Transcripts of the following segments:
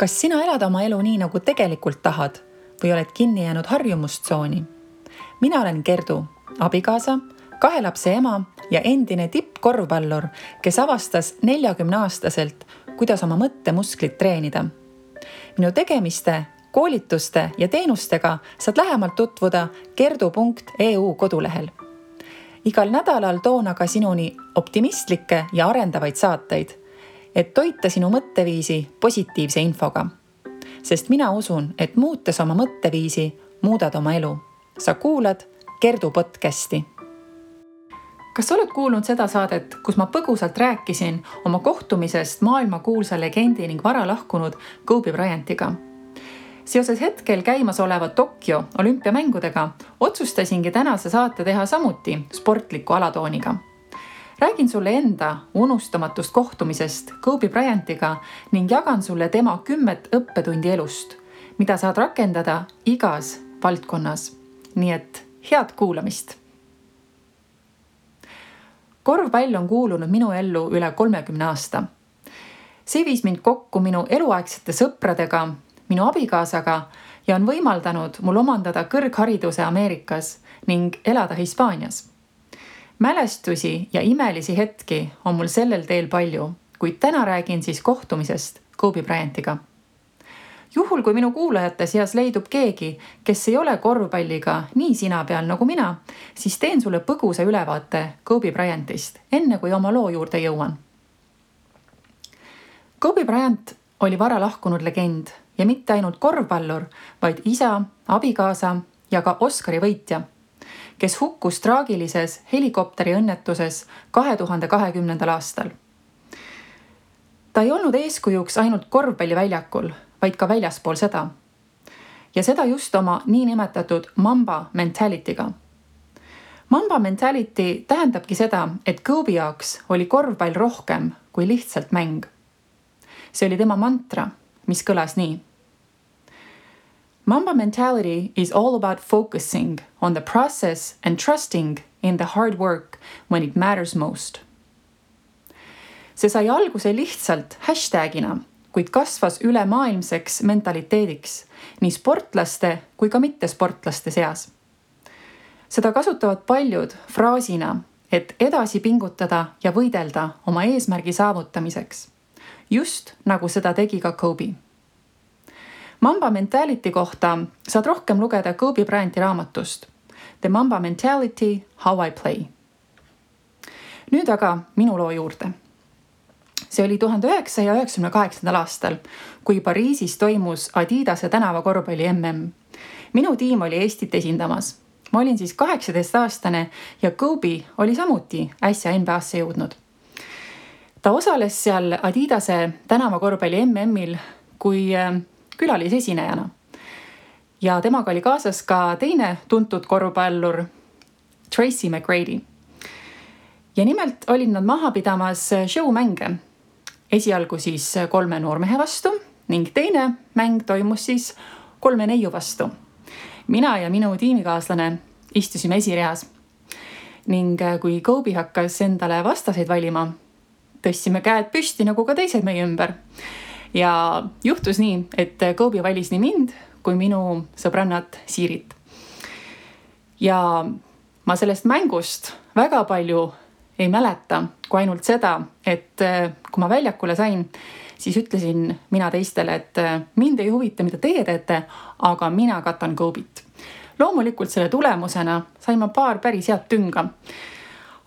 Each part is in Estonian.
Kas sina elad oma elu nii, nagu tegelikult tahad või oled kinni jäänud harjumustsooni? Mina olen Gerdu, abikaasa, 2 lapse ema ja endine tippkorvpallur, kes avastas 40-aastaselt, kuidas oma mõttemusklit treenida. Minu tegemiste, koolituste ja teenustega saad lähemalt tutvuda gerdu.eu kodulehel. Igal nädalal toon aga sinuni optimistlikke ja arendavaid saateid, et toita sinu mõtteviisi positiivse infoga. Sest mina usun, et muutes oma mõtteviisi, muudad oma elu. Sa kuulad Gerdu podcasti. Kas oled kuulnud seda saadet, kus ma põgusalt rääkisin oma kohtumisest maailmakuulsa legendi ning vara lahkunud Kobe Bryantiga? Seoses hetkel käimas oleva Tokyo olümpiamängudega otsustasingi tänase saate teha samuti sportliku alatooniga. Räägin sulle enda unustamatust kohtumisest Kobe Bryantiga ning jagan sulle tema 10 õppetundi elust, mida saad rakendada igas valdkonnas. Nii et head kuulamist! Korvpall on kuulunud minu ellu üle 30 aasta. See viis mind kokku minu eluaegsete sõpradega, minu abikaasaga ja on võimaldanud mul omandada kõrghariduse Ameerikas ning elada Hispaanias. Mälestusi ja imelisi hetki on mul sellel teel palju, kuid täna räägin siis kohtumisest Kobe Bryantiga. Juhul, kui minu kuulajate seas leidub keegi, kes ei ole korvpalliga nii sina peal nagu mina, siis teen sulle põgusa ülevaate Kobe Bryantist, enne kui oma loo juurde jõuan. Kobe Bryant oli vara lahkunud legend ja mitte ainult korvpallur, vaid isa, abikaasa ja ka Oscari võitja, kes hukkus traagilises helikopteri õnnetuses 2020. aastal. Ta ei olnud eeskujuks ainult korvpalliväljakul, vaid ka väljaspool seda. Ja seda just oma niinimetatud Mamba mentalityga. Mamba mentality tähendabki seda, et Kobe jaoks oli korvpall rohkem kui lihtsalt mäng. See oli tema mantra, mis kõlas nii. Mamba mentality is all about focusing on the process and trusting in the hard work when it matters most. See sai alguse lihtsalt hashtagina, kuid kasvas ülemaailmseks mentaliteediks nii sportlaste kui ka mittesportlaste seas. Seda kasutavad paljud fraasina, et edasi pingutada ja võidelda oma eesmärgi saavutamiseks, just nagu seda tegi ka Kobe. Mamba mentality kohta saad rohkem lugeda Kobe Bryanti raamatust The Mamba Mentality, How I Play. Nüüd aga minu loo juurde. See oli 1998. aastal, kui Pariisis toimus Adidase tänavakorvpalli MM. Minu tiim oli Eestit esindamas. Ma olin siis 18-aastane ja Kobe oli samuti äsja NBA-sse jõudnud. Ta osales seal Adidase tänavakorvpalli MM-il kui külalisesinejana. Ja temaga oli kaasas ka teine tuntud korvpallur Tracy McGrady. Ja nimelt olid nad maha pidamas showmänge. Esialgu siis 3 noormehe vastu ning teine mäng toimus siis 3 neiu vastu. Mina ja minu tiimikaaslane istusime esireas. Ning kui Kobe hakkas endale vastaseid valima, tõstsime käed püsti nagu ka teised meie ümber. Ja juhtus nii, et Kobe valis nii mind kui minu sõbrannat Siirit. Ja ma sellest mängust väga palju ei mäleta, kui ainult seda, et kui ma väljakule sain, siis ütlesin mina teistele, et mind ei huvita, mida teie teete, aga mina katan Kobe't. Loomulikult selle tulemusena sain ma paar päris head tünga.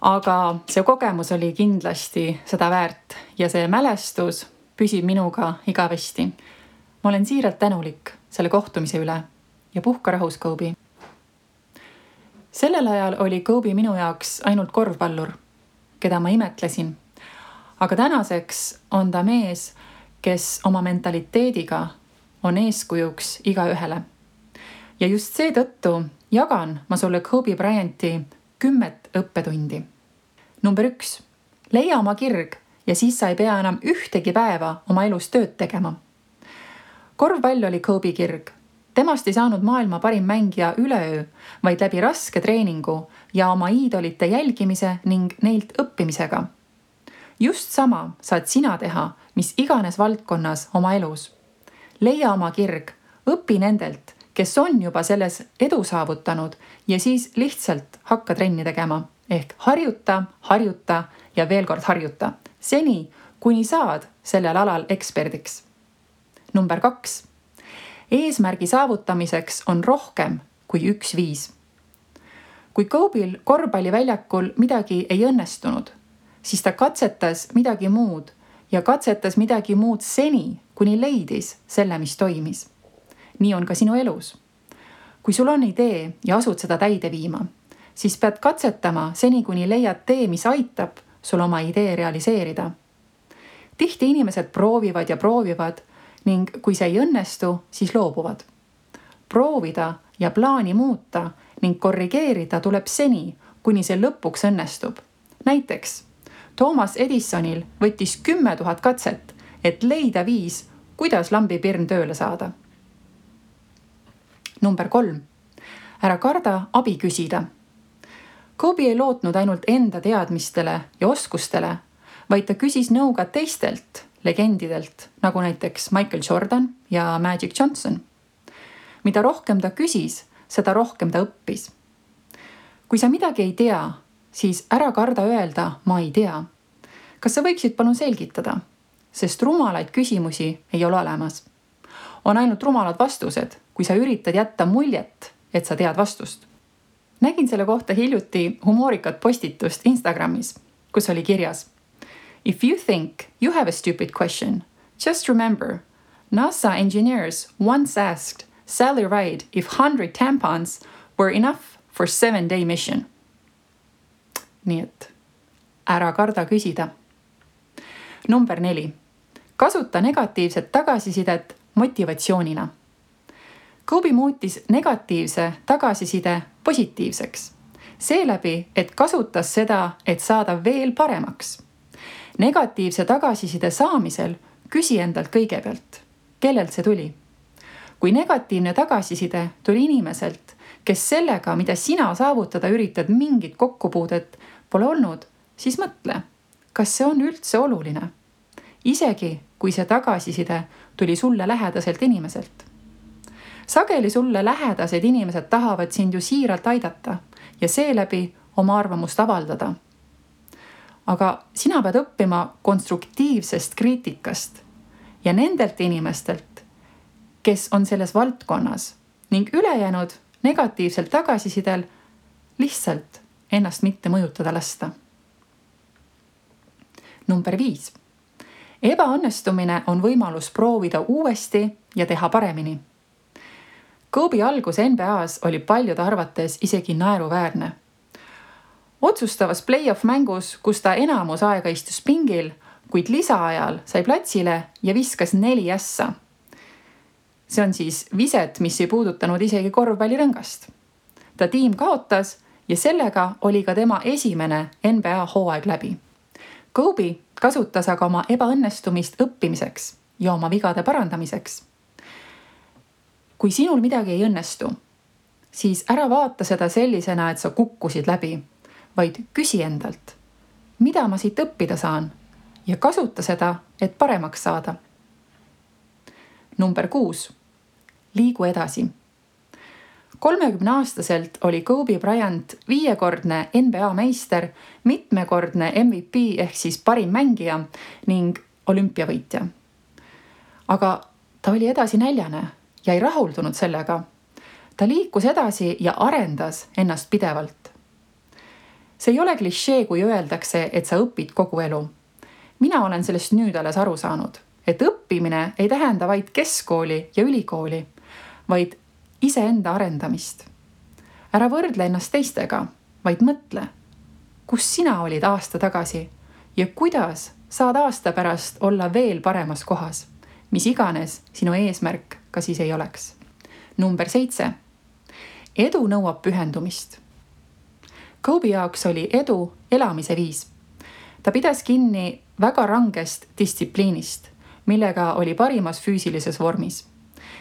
Aga see kogemus oli kindlasti seda väärt ja see mälestus püsib minuga igavesti. Ma olen siiralt tänulik selle kohtumise üle ja puhka rahus, Kobe. Sellel ajal oli Kobe minu jaoks ainult korvpallur, keda ma imetlesin. Aga tänaseks on ta mees, kes oma mentaliteediga on eeskujuks igaühele. Ja just seetõttu jagan ma sulle Kobe Bryanti 10 õppetundi. Number 1. Leia oma kirg ja siis sa ei pea enam ühtegi päeva oma elus tööd tegema. Korvpall oli Kobe kirg. Temast ei saanud maailma parim mängija üleöö, vaid läbi raske treeningu ja oma iidolite jälgimise ning neilt õppimisega. Just sama saad sina teha, mis iganes valdkonnas oma elus. leia oma kirg, õpi nendelt, kes on juba selles edu saavutanud ja siis lihtsalt hakka trenni tegema. Ehk harjuta ja veel kord harjuta. Seni, kuni saad sellel alal eksperdiks. Number 2. Eesmärgi saavutamiseks on rohkem kui üks viis. Kui Kobe'l korvpalliväljakul midagi ei õnnestunud, siis ta katsetas midagi muud ja katsetas midagi muud seni, kuni leidis selle, mis toimis. Nii on ka sinu elus. Kui sul on idee ja asud seda täide viima, siis pead katsetama seni, kuni leiad tee, mis aitab sul oma idee realiseerida. Tihti inimesed proovivad ja proovivad ning kui see ei õnnestu, siis loobuvad. Proovida ja plaani muuta ning korrigeerida tuleb seni, kuni see lõpuks õnnestub. Näiteks, Thomas Edisonil võttis 10 000 katset, et leida viis, kuidas lambipirn tööle saada. Number 3. Ära karda abi küsida. Kobe ei lootnud ainult enda teadmistele ja oskustele, vaid ta küsis nõu ka teistelt legendidelt, nagu näiteks Michael Jordan ja Magic Johnson. Mida rohkem ta küsis, seda rohkem ta õppis. Kui sa midagi ei tea, siis ära karda öelda, ma ei tea. Kas sa võiksid palun selgitada? Sest rumalaid küsimusi ei ole olemas. On ainult rumalad vastused, kui sa üritad jätta muljet, et sa tead vastust. Nägin selle kohta hiljuti humoorikat postitust Instagramis, kus oli kirjas: If you think you have a stupid question, just remember, NASA engineers once asked Sally Ride if 100 tampons were enough for 7-day mission. Nii et ära karda küsida. Number 4. Kasuta negatiivset tagasisidet motivatsioonina. Kobe muutis negatiivse tagasiside positiivseks. Seeläbi, et kasutas seda, et saada veel paremaks. Negatiivse tagasiside saamisel küsi endalt kõigepealt, kellelt see tuli. Kui negatiivne tagasiside tuli inimeselt, kes sellega, mida sina saavutada üritad, mingit kokkupuudet pole olnud, siis mõtle, kas see on üldse oluline. Isegi, kui see tagasiside tuli sulle lähedaselt inimeselt. Sageli sulle lähedased inimesed tahavad sind ju siiralt aidata ja seeläbi oma arvamust avaldada. Aga sina pead õppima konstruktiivsest kriitikast ja nendelt inimestelt, kes on selles valdkonnas ning ülejäänud negatiivselt tagasisidel lihtsalt ennast mitte mõjutada lasta. Number 5. Ebaõnnestumine on võimalus proovida uuesti ja teha paremini. Kobe algus NBA-s oli paljude arvates isegi naeruväärne. Otsustavas play-off mängus, kus ta enamus aega istus pingil, kuid lisaajal sai platsile ja viskas 4 ässa. See on siis viset, mis ei puudutanud isegi korvpallirõngast. Ta tiim kaotas ja sellega oli ka tema esimene NBA hooaeg läbi. Kobe kasutas aga oma ebaõnnestumist õppimiseks ja oma vigade parandamiseks. Kui sinul midagi ei õnnestu, siis ära vaata seda sellisena, et sa kukkusid läbi, vaid küsi endalt, mida ma siit õppida saan ja kasuta seda, et paremaks saada. Number 6. Liigu edasi. 30-aastaselt oli Kobe Bryant 5-kordne NBA meister, mitmekordne MVP ehk siis parim mängija ning olümpiavõitja. Aga ta oli edasi näljane ja ei rahuldunud sellega. Ta liikus edasi ja arendas ennast pidevalt. See ei ole klišee, kui öeldakse, et sa õpid kogu elu. Mina olen sellest nüüd alles aru saanud, et õppimine ei tähenda vaid keskkooli ja ülikooli, vaid iseenda arendamist. Ära võrdle ennast teistega, vaid mõtle, kus sina olid aasta tagasi ja kuidas saad aasta pärast olla veel paremas kohas, mis iganes sinu eesmärk ka siis ei oleks. Number 7. Edu nõuab pühendumist. Kobe jaoks oli edu elamise viis. Ta pidas kinni väga rangest distsipliinist, millega oli parimas füüsilises vormis.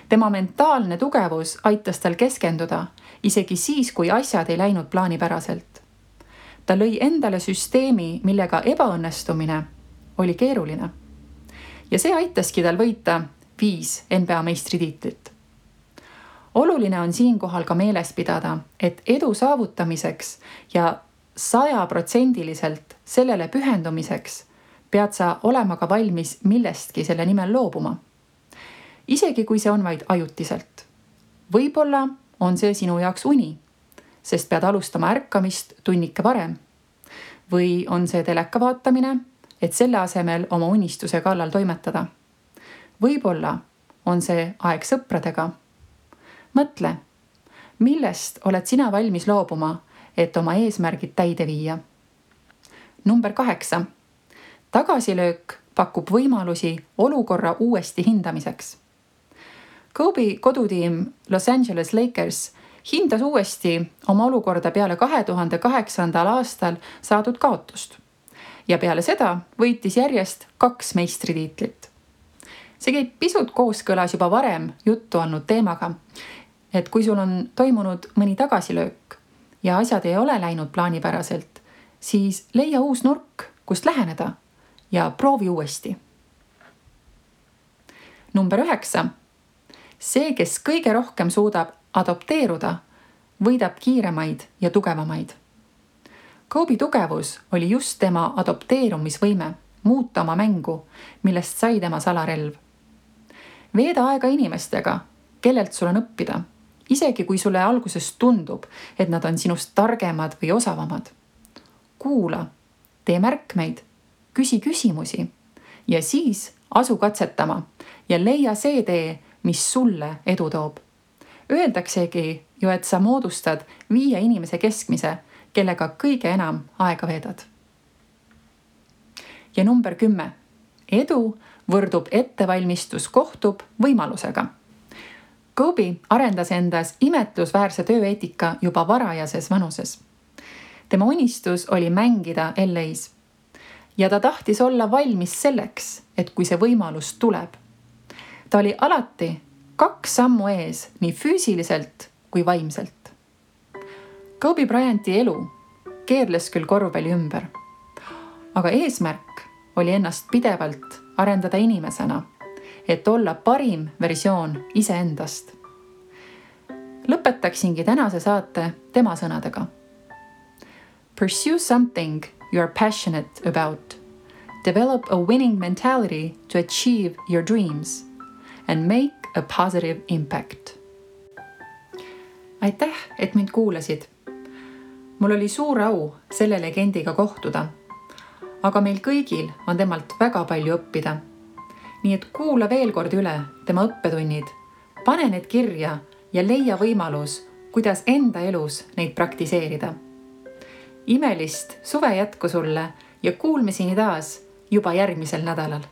Tema mentaalne tugevus aitas tal keskenduda, isegi siis, kui asjad ei läinud plaanipäraselt. Ta lõi endale süsteemi, millega ebaõnnestumine oli keeruline. Ja see aitaski tal võita 5 NBA meistritiitlit. Oluline on siinkohal ka meeles pidada, et edu saavutamiseks ja 100% sellele pühendumiseks pead sa olema ka valmis millestki selle nimel loobuma. Isegi kui see on vaid ajutiselt. Võib-olla on see sinu jaoks uni, sest pead alustama ärkamist tunnike varem. Või on see teleka vaatamine, et selle asemel oma unistuse kallal toimetada. Võib-olla on see aeg sõpradega. Mõtle, millest oled sina valmis loobuma, et oma eesmärgid täide viia. Number 8. Tagasilöök pakub võimalusi olukorra uuesti hindamiseks. Kobe kodutiim Los Angeles Lakers hindas uuesti oma olukorda peale 2008. aastal saadud kaotust. Ja peale seda võitis järjest 2 meistritiitlit. See käib pisut kooskõlas juba varem juttu olnud teemaga, et kui sul on toimunud mõni tagasilöök ja asjad ei ole läinud plaanipäraselt, siis leia uus nurk, kust läheneda ja proovi uuesti. Number 9. See, kes kõige rohkem suudab adopteeruda, võidab kiiremaid ja tugevamaid. Kobe tugevus oli just tema adopteerumisvõime muuta oma mängu, millest sai tema salarelv. Veeda aega inimestega, kellelt sul on õppida, isegi kui sulle alguses tundub, et nad on sinust targemad või osavamad. Kuula, tee märkmeid, küsi küsimusi ja siis asu katsetama ja leia see tee, mis sulle edu toob. Öeldaksegi ju, et sa moodustad 5 inimese keskmise, kellega kõige enam aega veedad. Ja number 10. Edu võrdub ettevalmistus kohtub võimalusega. Kobe arendas endas imetlusväärse tööeetika juba varajases vanuses. Tema unistus oli mängida LA-s ja ta tahtis olla valmis selleks, et kui see võimalus tuleb. Ta oli alati 2 sammu ees nii füüsiliselt kui vaimselt. Kobe Bryanti elu keerles küll korvpalli ümber, aga eesmärk oli ennast pidevalt arendada inimesena, et olla parim versioon iseendast. Lõpetaksingi tänase saate tema sõnadega. Pursue something you are passionate about. Develop a winning mentality to achieve your dreams and make a positive impact. Aitäh, et mind kuulasid. Mul oli suur au selle legendiga kohtuda, aga meil kõigil on temalt väga palju õppida. Nii et kuula veel kord üle tema õppetunnid, pane need kirja ja leia võimalus, kuidas enda elus neid praktiseerida. Imelist suve jätku sulle ja kuulmiseni taas juba järgmisel nädalal.